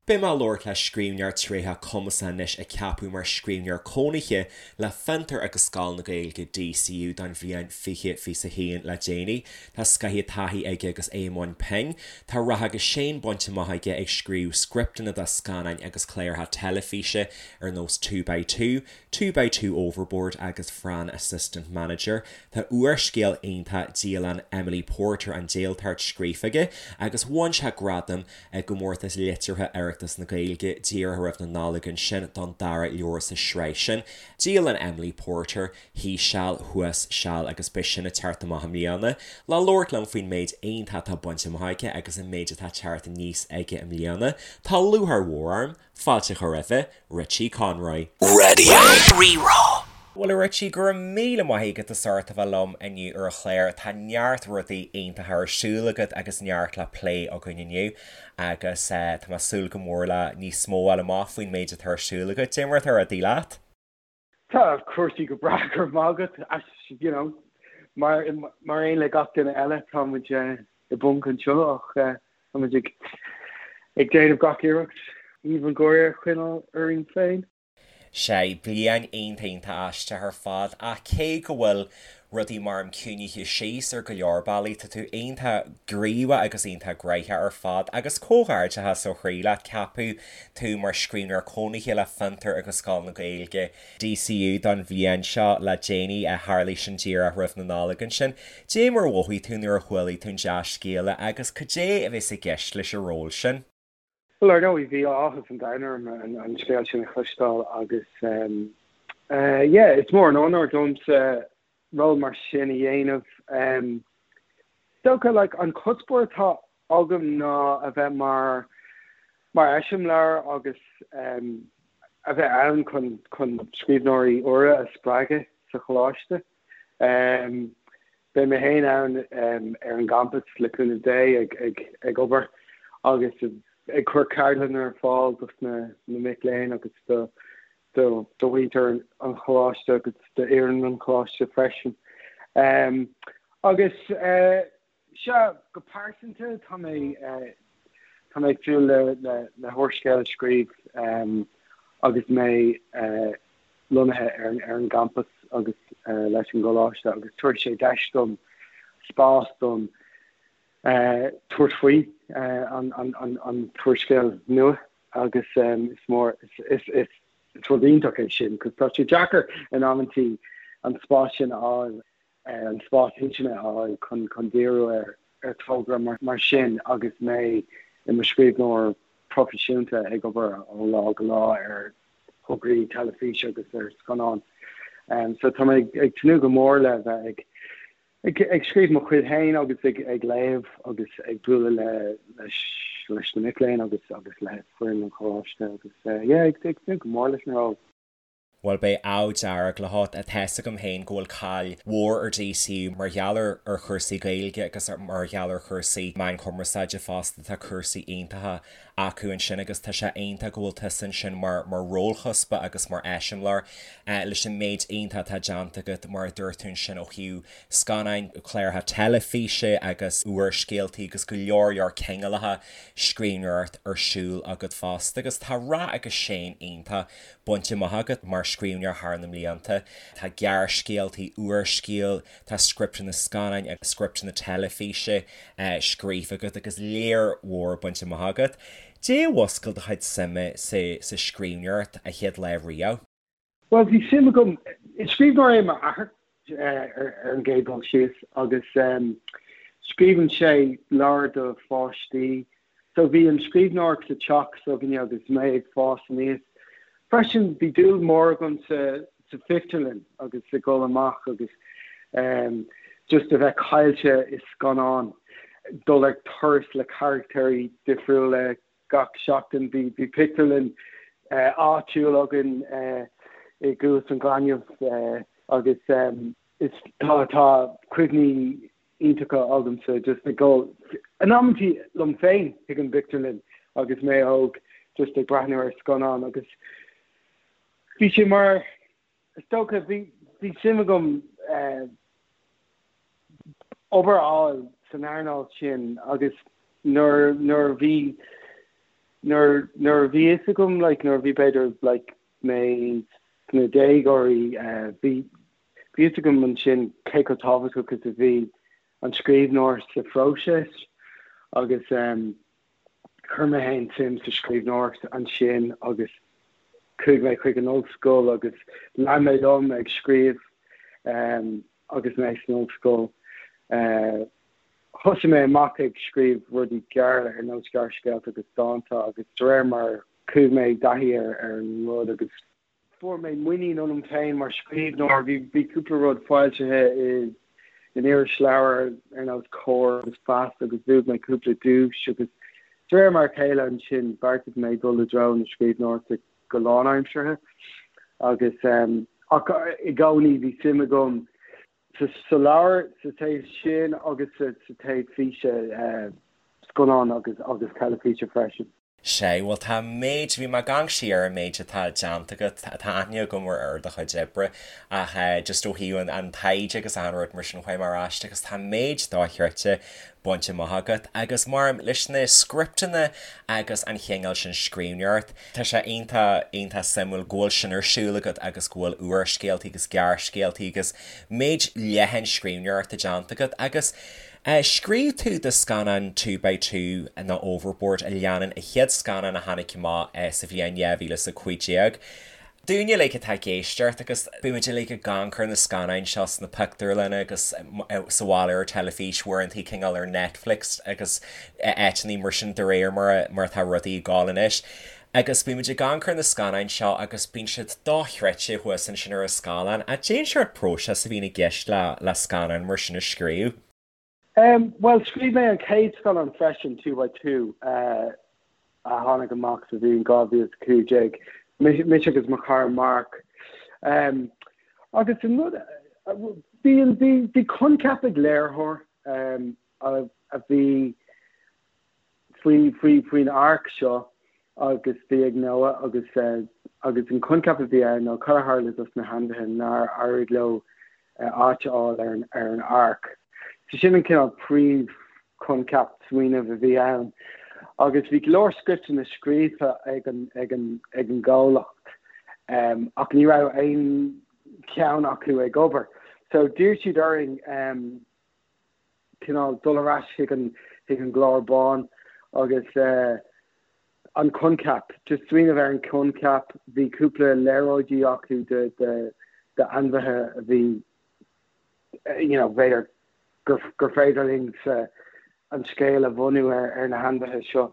Beidh mé ag labhairt le scríbhneoir tréitheach cumasach anois a ceapadh mar scríbhneoir cónaithe le Fiontar agus Scoil na Gaeilge, DCU, don bhliain 2021 le déanaí. Tá scaitheamh taithí aige agus é i mbun pinn. Tá rath agus séan bainte amach aige ag scríobh scripteanna do scannáin agus cláracha teilifíse ar nós Two by Two, Two by Two Overboard agus Fran Assistant Manager. Tá úrscéal iontach Dialann Emily Porter, An Déaltart scríofa aige agus bhain sé gradam i gComórtas Liteartha Oireachtas na Gaeilge díreach roimh na Nollag ansin don dara leabhar sa sraith sin, Dialann Emily Porter, Thíos Seal, Thuas Seal agus beidh sin ag teacht amach i mbliana. Le labhairt liom faoin méid iontach atá bainte amach aige agus an méid atá ag teacht aníos aige i mbliana, tá lúcháir mhór orm fáilte a chur roimhe, Richie Conroy. Radio Rí-Rá. Bhuel a Richie, go raibh míle maith agat as ucht a bheith liom inniu ar an chlár. Tá neart rudaí iontacha ar siúl agat agus neart le plé againn inniu agus tá mé ag súil go mór le níos mó a fháil amach faoin méid atá ar siúl agat. Cad é mar atá rudaí leat? Tá cúrsaí go breá, go raibh maith agat. You know, mar mar aon le gach duine eile tá muid i bponc anseo ach tá muid ag ag déanamh gach iarracht aoibh an gháire a choinneáil orainn féin. Sea, bliain iontach iontach aisteach ar fad ach cé go bhfuil rudaí measaim ciúinithe síos ar go leor bealaí, tá tú iontach gníomhach agus iontach gnaitheach ar fad agus comhghairdeachas ó chroí leat, ceapadh tú mar scríbhneoir cónaithe le Fiontar agus Scoil na Gaeilge, DCU, don bhliain seo le déanaí, a tharlaigh sin díreach roimh na Nollag ansin. Cad é mar a mhothaigh tú nuair a chualaigh tú an dea-scéala agus cad é a bheas i gceist leis an ról sin? Bhuel, ar ndóigh, bhí áthas an domhain orm an scéal sin a chloisteáil agus yeah, is mór an onóir domsa ról mar sin a dhéanamh. Is dócha, like, an cuspóir atá agam ná a bheith mar mar eiseamláir agus a bheith ann chun chun scríbhneoirí úra a spreagadh sa choláiste. Beidh mé féin ann ar an gcampas le cúnamh Dé ag obair agus ag cur ceardlanna ar fáil dos na mic léinn agus do mhuintir an choláiste agus d'fhoireann an choláiste freisin. Agus sea, go pearsanta tá mé tá mé ag súil le le húrscéal a scríobh agus mé lonnaithe ar an gcampas agus leis an gcoláiste agus tabharfaidh sé deis dom spás dom tabhairt faoi an t-úrscéal nua agus is mór is is rud iontach é sin 'cause tá sé deacair in amantaí an spás sin a fháil an spás intinne a fháil chun chun díriú ar ar togra mar sin agus mé i mo scríbhneoir proifisiúnta ag obair ó lá go lá ar thograí teilifíse agus ar scannáin. So tá mé ag tnúth go mór le bheith ag ag ag scríobh mo chuid féin agus ag ag léamh agus ag bualadh le leis leis na mic léinn agus agus le foireann an choláiste agus yeah ag ag tnúth go mór leis an ról. Bhuel, beidh ádh dearg leat. Tá's agam féin go bhfuil cáil mhór ar DCU mar gheall ar ar chúrsaí Gaeilge agus mar gheall ar chúrsaí meáin chumarsáide fosta. Tá cúrsaí iontacha acu ansin agus tá sé iontach go bhfuil tusa ansin mar mar rólchuspa agus mar eiseamláir leis an méid iontach atá déanta agat mar a dúirt tú ansin ó thaobh scannáin, cláracha teilifíse agus úrscéaltaí agus go leor leor cineálacha scríbhneoireacht ar siúl agat fosta agus tá rath agus séan iontach bainte amach agat mar scríbhneoir thar na mblianta. Tá gearrscéaltaí, úrscéal, tá scripteanna scannáin agus scripteanna teilifíse scríofa agat agus lear mhór bainte amach agat. Cad é a mhúscail do chuid suime sa scríbhneoireacht a chéad lá riamh? Bhuel, bhí suim agam, is scríbhneoir é m'athair ar an gcéad dul síos agus scríobhann sé leabhair do pháistí So bhí an scríbhneoireacht sa teach s'againne agus mé ag fás aníos. Freisin bhí dúil mhór agam sa sa phictiúrlann agus ag dul amach agus just a bheith caillte i scannán, dul ar turas le carachtéirí difriúla gach seachtain. Bhí bhí pictiúrlann áitiúil againn i gCuas an Ghainimh agus is tá tá cuimhní iontacha agamsa just ag dul in amantaí liom féin chuig an bpictiúrlann agus mé óg just ag breathnú ar scannán agus bhí sé mar is dócha bhí bhí suim agam eh, obair a fháil san earnáil sin agus nuair nuair bhí. Nuair nuair a bhí fhios agam like nuair a bhí b'fhéidir like mé sna déagóirí bhí bhí fhios agam ansin cé chomh tábhachtach is a bhí an scríbhneoir sa phróiseas agus chuir mé féin suim sa scríbhneoireacht ansin agus chuaigh mé chuig an ollscoil agus lean mé liom ag scríobh agus mé san ollscoil. Thosaigh mé amach ag scríobh rudaí gearra ar nós gearrscéalta agus dánta agus de réir mar chuaigh mé i dtaithí ar an rud agus fuair mé muinín ionam féin mar scríbhneoir. Bhí bhí cúpla rud foilsithe i in irisleabhair ar nós Comhar agus Feasta agus bhuaigh mé cúpla duais agus de réir mar a chéile ansin bheartaigh mé dul i dtreo na scríbhneoireachta go lánaimseartha agus ach i gcónaí bhí suim agam sa sa leabhar sa taobh sin agus sa sa taobh físe scannán agus agus teilifíse freisin. Sea, bhuel tá an méid, bhí mé ag amharc siar ar an méid atá déanta agat, tá aithne agam ar ar do chuid oibre ach just ó thaobh an an taighde agus achan rud mar sin chuaigh mé ar ais agus tá an méid dochreidte bainte amach agat agus mar leis na scripteanna agus an chineál sin scríbhneoireacht, tá sé iontach, iontach suimiúil go bhfuil sin ar siúl agat agus go bhfuil úrscéaltaí agus gearrscéaltaí agus méid leathan scríbhneoireachta déanta agat agus scríobh tú do scannán Two by Two nó Overboard a leanann an chéad scannán a tháinig amach sa bhliain 2015. Dúinne uilig atá ag éisteacht agus bímid uilig ag amharc ar na scannáin seo sna pictiúrlanna agus sa bhaile ar teilifís, uaireanta cineál ar Netflix agus áiteanna mar sin de réir mar mar atá rudaí ag gabháil anois. Agus bímid ag amharc ar na scannáin seo agus bíonn siad dochreidte thuas ansin ar an scáileán. Cad é an sórt próiseas a bhíonn i gceist le le scannán mar sin a scríobh. Bhuel, scríobh mé an chéad scannán freisin, Two by Two, a tháinig amach sa bhliain 2015, mise agus mo chara Mark. Agus an rud, bhí, bhí, bhí coincheap ag léiritheoir a bhí faoi, faoi, faoin áirc seo agus bhí ag Noah agus, agus an coincheap a bhí ann ná cad a tharla dos na hainmhithe nár éirigh leo áit a fháil ar an, ar an áirc. So sin an cineál príomh-choincheap, smaoineamh a bhí ann. Agus bhí go leor scripteanna scríofa ag an, ag an, ag an gcomhlacht ach ní raibh aon cheann acu ag obair. So d'iarr siad orainn cineál dul ar ais chuig an chuig an gclár bán agus an coincheap, just smaoineamh ar an choincheap, bhí cúpla léaráidí acu de de d'ainmhithe a bhí you know b'fhéidir gur gur féidir linn sa an scéal a bhunú ar ar na hainmhithe seo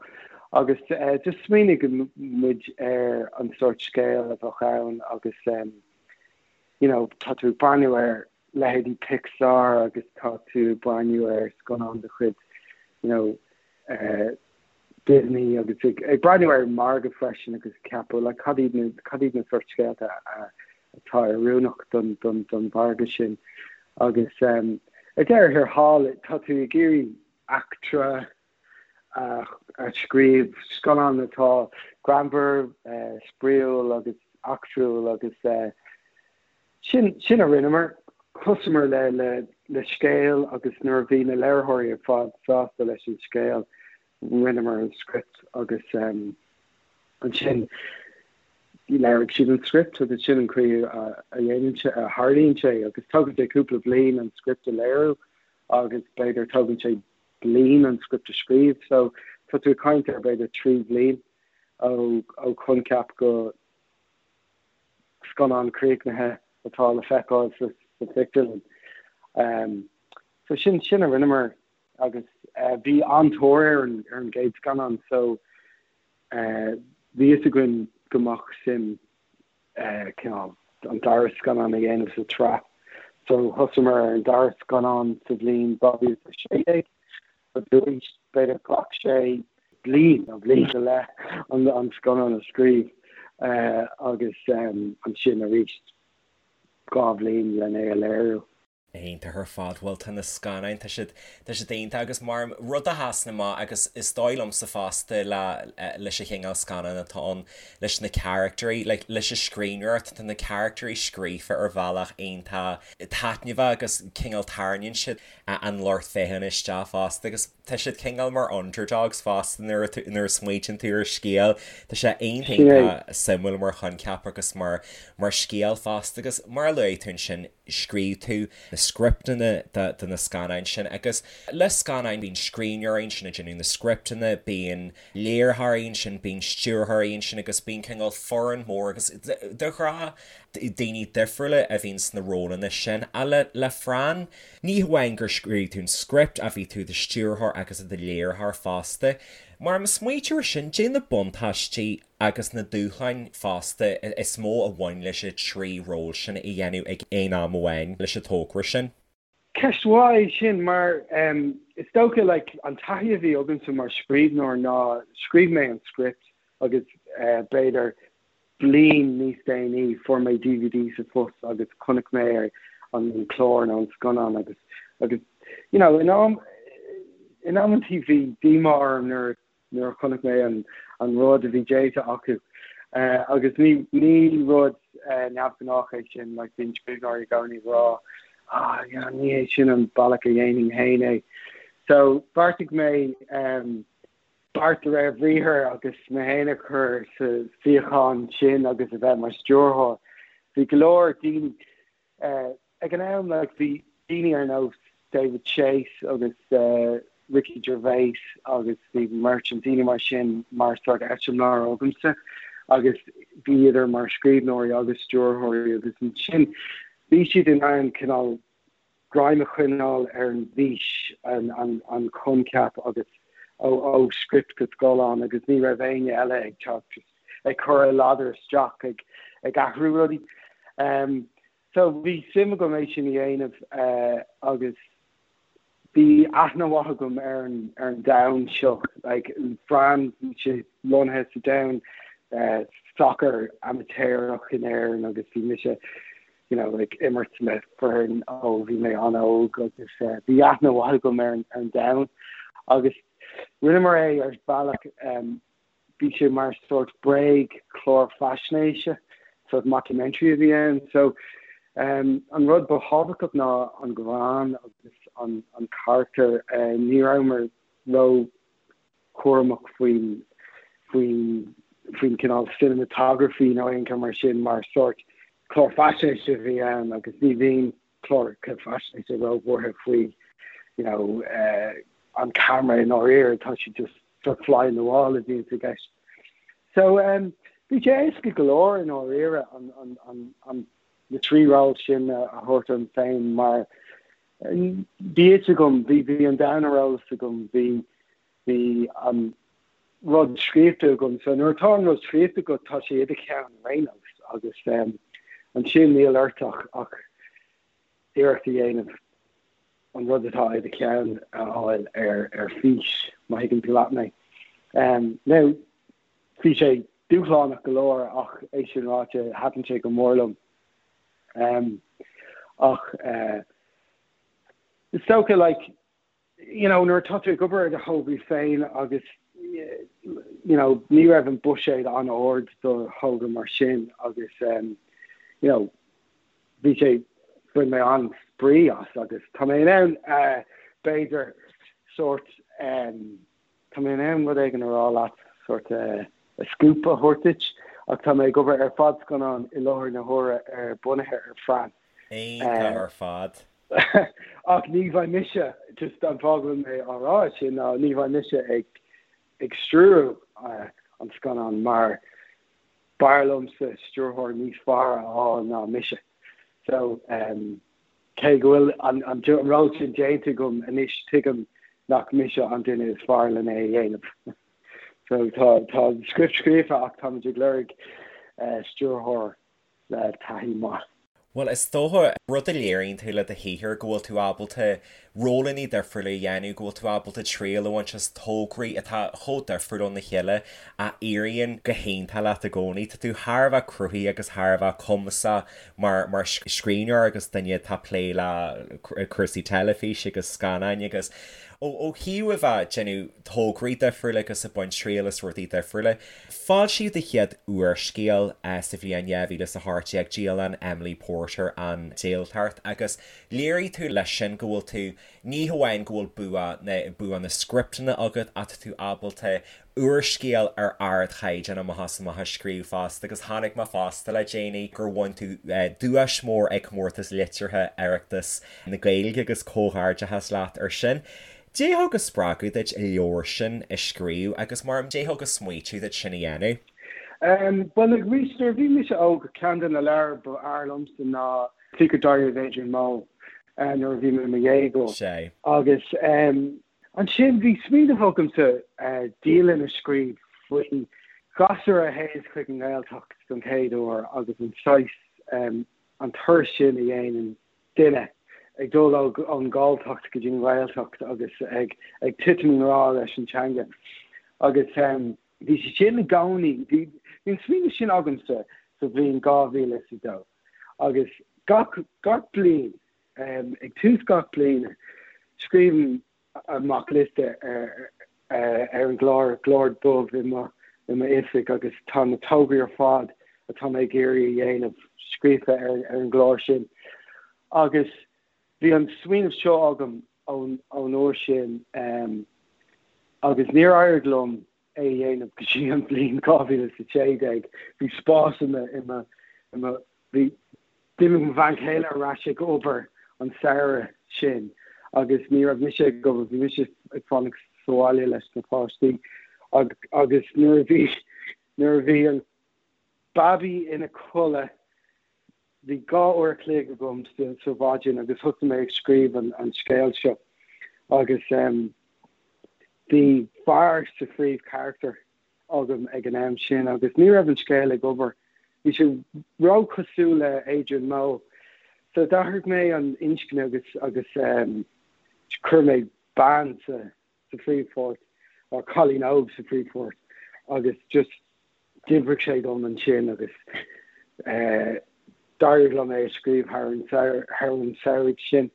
agus just smaoinigh muid ar an sórt scéal a bheadh ann agus you know tá tú ag breathnú ar leithéidí Pixar agus tá tú ag breathnú ar scannán de chuid you know Disney agus ag breathnú ar an margadh freisin agus ag ceapadh like cad iad na cad iad na sórt scéalta atá oiriúnach don don don mhargadh sin agus um, ar deireadh thiar thall tá tú ag iarraidh eachtra a a scríobh, scannán atá greannmhar, spraíúil agus eachtrúil agus sin sin a rinneamar. Thosaíomar le le le scéal agus nuair a bhí na léiritheoirí ar fad sásta leis an scéal, rinneamar an script agus ansin léirigh siad an script agus sin an chaoi a dhéanann sé, a tharlaíonn sé agus tógann sé cúpla bliain an script a léiriú agus b'fhéidir tógann sé bliain an script a scríobh so tá tú ag caint ar b'fhéidir 3 bhliain ó ó choincheap go scannán críochnaithe atá le feiceáil sa sa phictiúrlann. Um, so sin sin a rinneamar agus uh, bhí an-tóir ar an ar an gcéad scannán so uh, bhí fhios againn go mbeadh suim cineál an dara scannán a dhéanamh sa tsraith. So thosaíomar ar an dara scannán sa bhliain 2016 agus arís b'fhéidir ghlac sé bliain nó bliain go leith an scannán a scríobh agus ansin arís 2 bhliain len é a léiriú. Iontach ar fad. Bhuel tá na scannáin, tá siad, tá siad iontach agus mar rud a sheasann amach agus is dóigh liomsa fosta le, leis an chineál scannán atá ann, leis na caractairí, like leis an scríbhneoireacht, tá na caractairí scríofa ar bhealach iontach taitneamhach agus cineál tarraingíonn siad an lucht féachana isteach fosta agus. Tá siad cineál mar underdogs fosta nuair a nuair a smaoitíonn tú ar scéal. Tá sé iontach iontach suimiúil mar choincheap agus mar mar scéal fosta agus mar a luaigh tú ansin scríobh tú na scripteanna de de na scannáin sin agus le scannáin bíonn scríbhneoirí ansin ag déanamh na scripteanna, bíonn léiritheoirí ansin, bíonn stiúrthóirí ansin agus bíonn cineál foireann mór agus de ghnáth daoine difriúla a bhíonn sna rólanna sin. Ach le le Fran, ní hamháin gur scríobh tú an script ach bhí tú i do stiúrthóir agus i do léiritheoir fosta. Mar má smaoitítear air sin, caidé na buntáistí agus na dúshláin fosta is mó a bhain leis an trí ról sin a dhéanamh ag aon am amháin leis an togra sin? Ceist mhaith é sin mar is dócha like an taithí a bhí agamsa mar scríbhneoir ná scríobh mé an script agus b'fhéidir bliain níos déanaí fuair mé DVD sa phost agus chonaic mé an clár nó an scannán agus agus you know in am in amantaí bhí díomá orm nuair nuair a chonaic mé an an rud a bhí déanta acu agus ní ní rud neamhghnách é sin like bíonn scríbhneoirí i gcónaí ag rá ah yeah ní hé sin an bealach a dhéanfainn féin é. So bheartaigh mé um, beart de réir bhriathair agus mé féin a chur sa suíochán sin agus a bheith mar stiúrthóir. Bhí go leor daoine ag an am, like bhí daoine ar nós David Chase agus Ricky Gervais agus Stephen Merchant, daoine mar sin mar sort eiseamláir agamsa agus bhíodar mar scríbhneoirí agus stiúrthóirí agus ansin bhí siad in ann cineál greim a choinneáil ar an bhfís, an coincheap agus ó script go scáileán agus ní raibh éinne eile ag teacht ag cur a ladar isteach ag ag athrú rudaí. So bhí suim agam é sin a dhéanamh agus bhí aithne mhaith agam ar an ar an domhan seo like Fran bhí sé lonnaithe sa domhan sacar amaitéarach in Éirinn agus bhí mise you know, ag imirt le foireann ó bhí mé an-óg agus bhí aithne mhaith agam ar an domhan agus rinneamar é ar bhealach bhí sé mar sort bréag clár faisnéise, sort mockumentary a bhí ann. So um, an rud ba thábhachtach ná an greann agus an, an carachtar uh, ní rabhamar ró cúramach faoin faoin faoin cineál cinematography nó aon cheo mar sin mar sort clár faisnéise a bhí ann agus ní bhíonn cláracha faisnéise róbhuartha faoi you know uh, an camera i ndáiríre tá sé just sort fly in the wall a bhíonn i gceist. So um, bhí sé éasca go leor i ndáiríre an, an, an, an, na trí ról sin a thabhairt orm féin mar Bhí fhios agam, bhí, bhí an domhan ar eolas agam, bhí, bhí an rud scríofa agam. So nuair atá an rud scríofa agat, tá sé i do cheann ar aon nós agus ansin níl ort ach, ach iarracht a dhéanamh an rud atá i do cheann a fháil ar, ar fís, má thuigeann tú leat mé. Now, bhí sé dúshlánach go leor ach é sin ráite, thaitin sé go mór liom. Ach is dócha like you know nuair atá tú ag obair ar do thograí féin agus you know ní raibh an buiséad an-ard do thogra mar sin agus you know bhí sé bhain mé an-spraoi as agus tá mé in ann b'fhéidir sórt Tá mé in ann rud éigin a rá leat, sórt scoop a thabhairt duit, ach tá mé ag obair ar fadscannán i láthair na huaire ar bunaithe ar Fran. Iontach ar fad. Ach ní bheidh mise, just an fáth go bhfuil mé á rá sin ná ní bheidh mise ag ag stiúrú an scannán mar b'fhearr liomsa stiúrthóir níos fearr a fháil ná mise. So, Cé go bhfuil an ról sin déanta agam anois, tuigim nach mise an duine is fearr lena é a dhéanamh. So tá tá an script scríofa ach táimid ag lorg stiúrthóir le taithí maith. Bhuel, is dócha, rud a léiríonn tú le do shaothar, go bhfuil tú ábalta rólanna difriúla a dhéanamh, go bhfuil tú ábalta triail a bhaint as tograí atá chomh difriúil óna chéile a éiríonn go hiontach leat i gcónaí. Tá tú thar a bheith cruthaithe agus thar a bheith cumasach mar mar scríbhneoir agus duine atá ag plé le cúrsaí teilifíse agus scannáin agus ó ó thaobh a bheith ag déanamh tograí difriúla agus ag baint triail as rudaí difriúla. Foilsíodh do chéad úrscéal sa bhliain 2018, Dialann Emily Porter, An Déltacht, agus léirigh tú leis sin go bhfuil tú. Ní hamháin go bhfuil bua na bua na scripteanna agat ach tá tú ábalta úrscéal ar ardchaighdeán amach is amach a scríobh fosta agus chonaic mé fosta le déanaí gur bhain tú duais mór ag Comórtas Liteartha Oireachtas na Gaeilge agus comhghairdeachas leat ar sin. Cad é a thug an spreagadh duit an leabhar sin a scríobh agus mar cad é a thug an smaoitiú duit sin a dhéanamh? Bhuel, arís, nuair a bhí mise óg, ceann de na leabhair ba fhearr liomsa ná Secret Diary of Adrian Mole nuair a bhí mé i mo dhéagóir. Sea. Agus ansin bhí smaoineamh agamsa dialann a scríobh faoi ghasúr a théanns chuig an nGaeltacht don chéad uair agus an saghas, an turas sin a dhéanann duine ag dul ón nGalltacht go dtí an Ghaeltacht agus ag titim i ngrá leis an teanga. Agus bhí sé sin i gcónaí, bhí an smaoineamh sin agamsa sa bhliain 2002 agus gach, gach bliain, ag tús gach bliana, scríobhaim amach liosta ar an gclár, clár dubh i mo oifig agus tá na tograí ar fad atá mé ag iarraidh a dhéanamh scríofa ar an gclár sin. Agus bhí an smaoineamh seo agam ón uair sin agus níor éirigh liom é a dhéanamh go dtí an bhliain 2016. Bhí spás i mo, i mo, i mo, bhí, d'imigh mo bhean chéile ar ais ag obair an samhradh sin agus ní raibh mise ag obair, bhí mise ag fanacht sa bhaile leis na páistí agus nuair a bhí, nuair a bhí an babaí ina codladh, bhí 2 uair a chloig agam sa mhaidin agus thosaigh mé ag scríobh an scéil seo agus bhí fear sa phríomhcharachtar agam ag an am sin agus ní raibh an scéal ag obair. Bhí sé róchosúil le Adrian Mole. So d'athraigh mé an inscne agus agus chuir mé bean sa sa phríomhpháirt, or cailín óg sa phríomhpháirt agus just d'oibrigh sé dom ansin agus d'éirigh liom é a scríobh thar an thar an samhradh sin.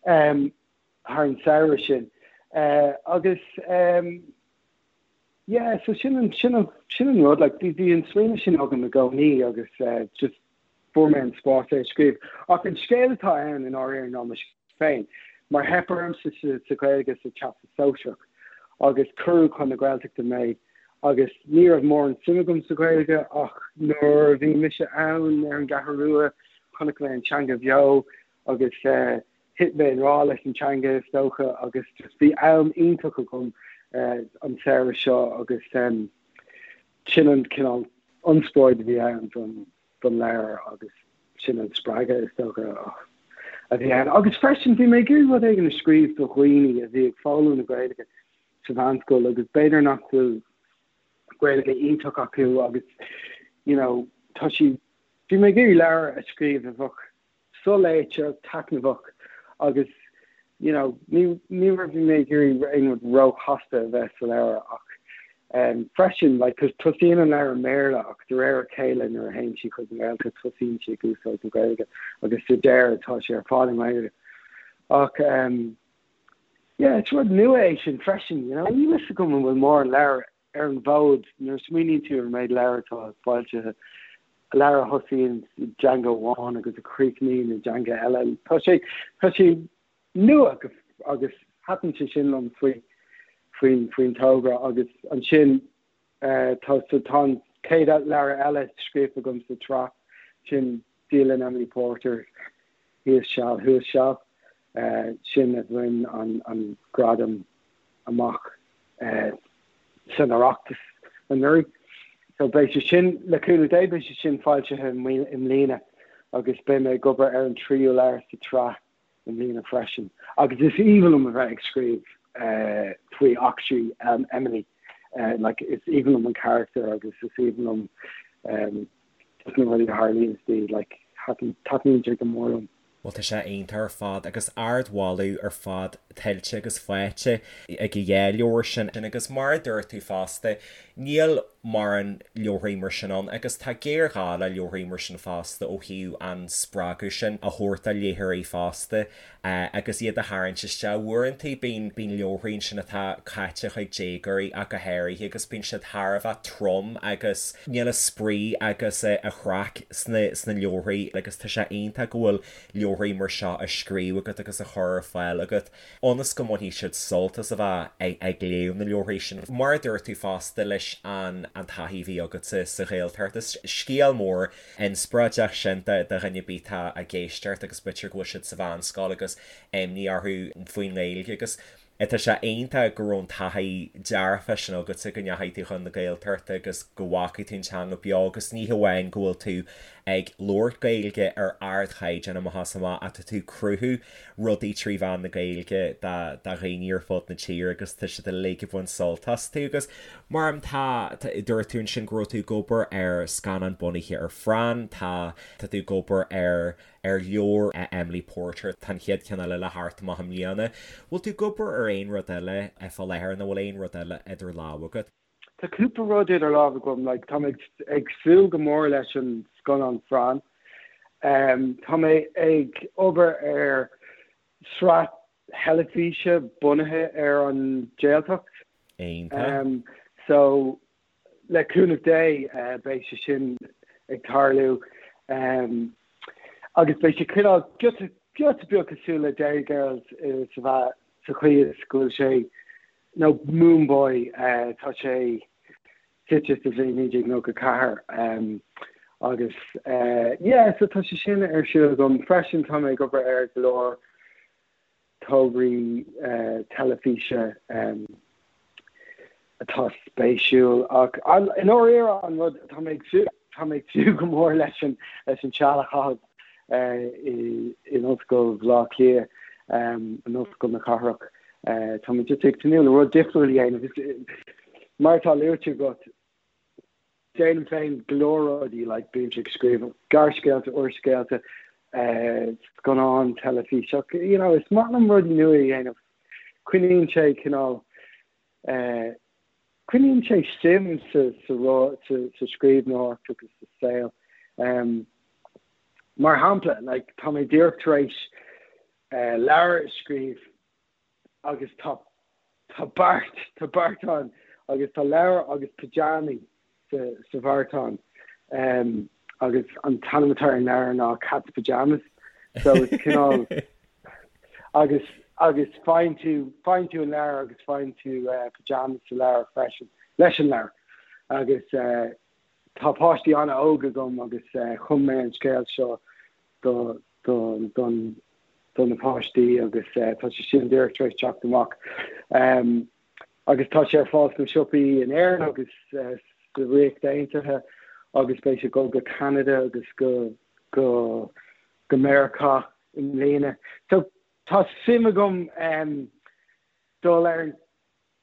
Thar an samhradh sin. Agus yeah, so sin an, sin an, sin an rud, like, bhí, bhí an smaoineamh sin agam i gcónaí agus just fuair mé an spás é a scríobh. Ach an scéal atá ann i ndáiríre ná mo scéal féin, mar theip ormsa sa, sa Ghaeilge sa Teastas Sóisearach agus cuireadh chun na Gaeltachta mé agus ní raibh mórán suim agam sa Ghaeilge ach nuair a bhí mise ann ar an gCeathrú Rua chonaic mé an teanga bheo agus thit mé i ngrá leis an teanga is dócha agus just bhí am iontach agam an samhradh seo agus sin an cineál ionspráid a bhí ann don don leabhar agus sin an spreagadh is dócha a bhí ann. Agus freisin bhí mé ag iarraidh rud éigin a scríobh do dhaoine a bhí ag foghlaim na Gaeilge sa mheánscoil agus b'fhéidir nach bhfuil Gaeilge iontach acu agus you know tá sí bhí mé ag iarraidh leabhar a scríobh a bheadh soléite, taitneamhach agus you know ní ní raibh mé ag iarraidh aon rud róchasta a bheith sa leabhar ach um, freisin like cos tosaíonn an leabhar i mBéarla ach de réir a chéile nuair a théann sí chuig an nGaeltacht tosaíonn sí ag úsáid na Gaeilge agus sa deireadh tá sé ar fad i nGaeilge. Ach um, yeah, is rud nua é sin freisin, you know, níl a fhios agam an bhfuil mórán leabhar ar an bhfód, nuair a smaoiníonn tú ar an méid leabhar atá foilsithe, leabhar a thosaíonn i dteanga amháin agus a chríochnaíonn i dteanga eile, tá sé, tá sé nua agus thaitin sé sin liom faoi, faoin, faoin togra agus ansin tá, so tá an chéad leabhar eile scríofa agam sa tsraith, sin Dialann Emily Porter, Thíos Seal Thuas Seal, sin a bhain an, an gradam amach san Oireachtas anuraidh. So beidh sé sin, le cúnamh Dé, beidh sé sin foilsithe i mbliana agus beidh mé ag obair ar an tríú leabhar sa tsraith i mbliana freisin. Agus is aoibhinn liom a bheith ag scríobh faoi eachtraí Emily. Like, is aoibhinn liom an carachtar agus is aoibhinn liom just na rudaí a tharlaíonn di, like, taitníonn sé go mór liom. Bhuel tá sé iontach ar fad agus ardmholadh ar fad tuillte agus faighte ag an dhá leabhar sin agus mar a dúirt tú fosta, níl. mórán leabharthaí mar sin ann agus tá géarghá le leabharthaí mar sin fosta ó thaobh an spreagadh sin a thabhairt do léitheoirí fosta agus iad a tharraingt isteach. Uaireanta bíonn bíonn leabharthaí ansin atá caite chuig déagóirí ach go háirithe agus bíonn siad thar a bheith trom agus níl an spraoi agus an chraic sna sna leabharthaí agus tá sé iontach go bhfuil leabharthaí mar seo á scríobh agat agus á chur ar fáil agat. ionas go mbainfidh siad sult as a bheith ag léamh na leabharthaí sin. Mar a dúirt tú fosta leis an taithí a bhí agatsa sa Ghaeltacht, is scéal mór inspioráideach sin do dhuine ar bith atá ag éisteacht agus b'fhéidir go bhfuil siad sa mheánscoil agus imní orthu faoin nGaeilge agus tá sé iontach go raibh an taithí dearfach sin agatsa go ndeachaigh tú chun na Gaeltachta agus go bhfacaigh tú an teanga beo agus ní hamháin go bhfuil tú ag labhairt Gaeilge ar ardchaighdeán amach is amach ach tá tú ag cruthú rudaí trí mheán na Gaeilge do dhaoine ar fud na tíre agus tá siad uilig ag baint sult astu agus mar tá dúirt tú ansin go raibh tú ag obair ar scannán bunaithe ar Phran, tá tá tú ag obair ar ar leabhar Emily Porter, tá an chéad cheann eile le theacht amach i mbliana. Bhfuil tú ag obair ar aon rud eile fá láthair nó bhfuil aon rud eile idir lámha agat? Tá cúpla rud idir lámha agam, like, tá mé ag súil go mór leis an scannán Phran. Tá mé ag obair ar sraith theilifíse bunaithe ar an Jaeltacht. Iontach. So, le cúnamh Dé, beidh sé sin ag tarlú. Agus beidh sé cineál giota, giota beag cosúil le Derry Girls sa sa chaoi is go bhfuil sé nó Moone Boy, tá sé suite sa bhliain 1994 agus yeah so tá sé sin ar siúl agam. Freisin tá mé ag obair ar go leor tograí teilifíse atá spéisiúil ach i ndáiríre an rud tá mé ag tá mé ag súil go mór leis an leis an seal a chaitheamh in Ollscoil Bhaile Átha Cliath, in Ollscoil na Cathrach. Tá mé just ag tnúth le rud difriúil a dhéanamh. Mar atá luaite agat, déanaim féin go leor rudaí, like bímse ag scríobh gearrscéalta, úrscéalta, scannáin, teilifís, ach you know, is maith liom rudaí nua a dhéanamh. Coinníonn sé cineál, coinníonn sé suim sa sa sa scríbhneoireacht agus sa saol. Mar shampla, like, tá mé díreach tar éis leabhar a scríobh agus tá tá beart tá beartán agus tá leabhar agus pyjamaí sa sa bheartán agus an t-ainm atá ar an leabhar ná Cat's Pyjamas so is cineál agus agus faigheann tú faigheann tú an leabhar agus faigheann tú pyjamas sa leabhar freisin leis an leabhar agus tá páistí an-óg agam agus chum mé an scéal seo do do don do na páistí agus tá sé sin díreach tar éis teacht amach. Agus tá sé ar fáil sna siopaí in Éirinn agus sa Ríocht Aontaithe agus beidh sé ag dul go Ceanada agus go go go Meiriceá i mbliana. So tá suim agam dul ar an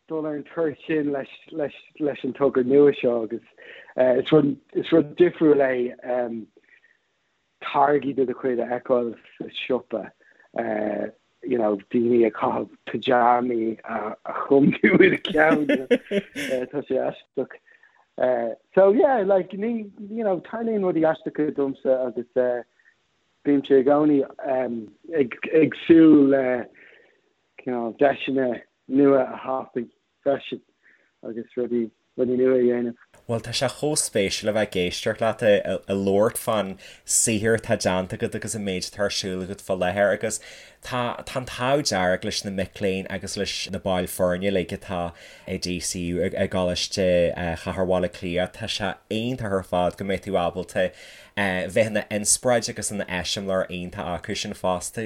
dul ar an turas sin leis leis leis an togra nua seo agus is rud is rud difriúil é táirgí de do chuid a fheiceáil sa siopa, you know, daoine ag caitheamh pyjamaí a chum tú i do cheann, tá sé aisteach. So yeah, like, ní, you know, tarlaíonn rudaí aisteacha domsa agus bímse i gcónaí ag ag súil le cineál deiseanna nua a thapú freisin agus rudaí rudaí nua a dhéanamh. Bhuel, tá sé chomh spéisiúil a bheith ag éisteacht leat ag labhairt fán saothar atá déanta agat agus an méid atá ar siúl agat fá láthair agus tá tá an t-ádh dearg leis na mic léinn agus leis na baill foirne uilig atá i DCU i gColáiste Chathair Bhaile Átha Cliath. Tá sé iontach ar fad go mbeidh tú ábalta bheith ina inspioráid agus ina eiseamláir iontach acu sin fosta.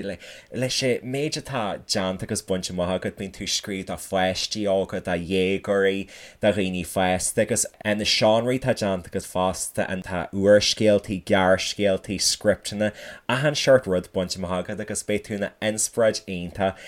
Leis an méid atá déanta agus bainte amach agat, bíonn tú ag scríobh do pháistí óga, do dhéagóirí, do dhaoine fásta agus na seánraí atá déanta agat fosta, tá úrscéaltaí, gearrscéaltaí, scripteanna, achan seort rud bainte amach agat agus beidh tú ina inspioráid iontach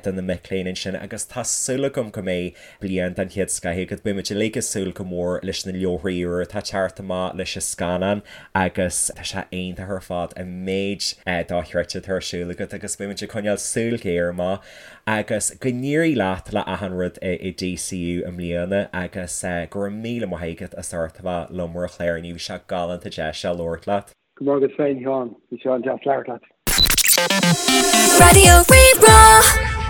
do na mic léinn ansin agus tá súil agam go mbeidh bliain den chéad scoith agat. Beidh muid uilig ag súil go mór leis na leabharthaí úra atá ag teacht amach, leis an scannán agus tá sé iontach ar fad an méid dochreidte atá ar siúl agat agus beidh muid ag coinneáil súil ghéar amach agus go n-éirí leat le achan rud i DCU i mbliana agus go raibh míle maith agat. agat as ucht a bheith liom ar an chlár inniu. Bhí sé galánta deis a labhairt leat. Go raibh maith agat féin, Sheáin. Bhí sé an-deas labhairt leat. Raidió Rí-Rá.